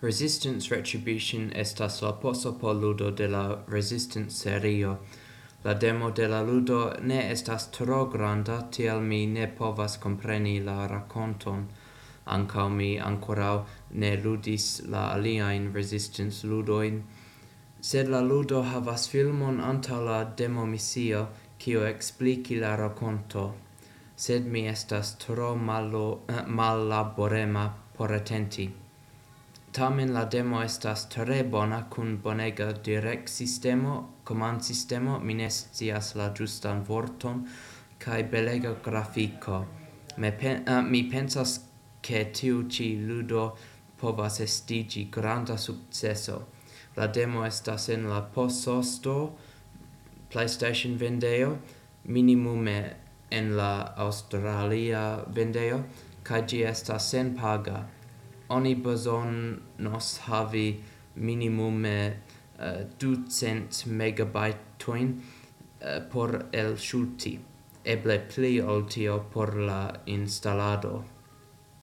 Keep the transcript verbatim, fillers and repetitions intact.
Resistance Retribution estas la poso por ludo de la Resistance serio. La demo de la ludo ne estas tro granda, tial mi ne povas kompreni la rakonton. Ankaŭ mi ankoraŭ ne ludis la aliajn Resistance ludojn. Sed la ludo havas filmon antaŭ la demo misio, kiu ekspliki la rakonto. Sed mi estas tro mallo- eh, mallaborema por atenti. Tamen la demo estas tre bona kun bonega direktsistemo, komandsistemo, mi ne scias la ĝustan vorton, kaj belega grafiko. Me pen- eh, mi pensas, ke tiu ĉi ludo povas estiĝi granda sukceso. La demo estas en la Poso Store, PlayStation vendejo, minimume en la Aŭstralia vendejo, kaj ĝi estas senpaga. Oni bezonos havi minimume eh, ducent megabajtojn eh, por elŝuti, eble pli ol tio por la instalado.